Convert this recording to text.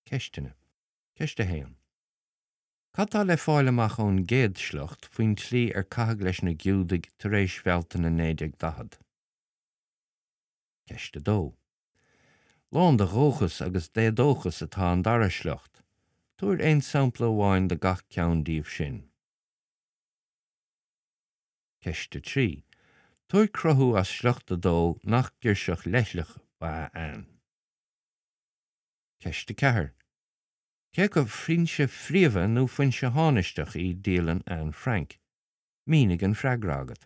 Ceisteanna. Ceist 1. Cad tá le fáil amach ón gcéad sliocht faoin tslí ar caitheadh leis na Giúdaigh tar éis Bhealtaine 1940? Ceist 2. Lán de dhóchas agus d'éadóchas atá an dara sliocht. Tabhair aon sampla amháin de gach ceann díobh sin. Ceist 3. Tabhair cruthú as sliocht 2 nach girseach leithleach ba ea Anne. Ceist 4. Cé acu foinse phríomha nó foinse thánaisteach í dialann Anne Frank? Mínigh an freagra agat.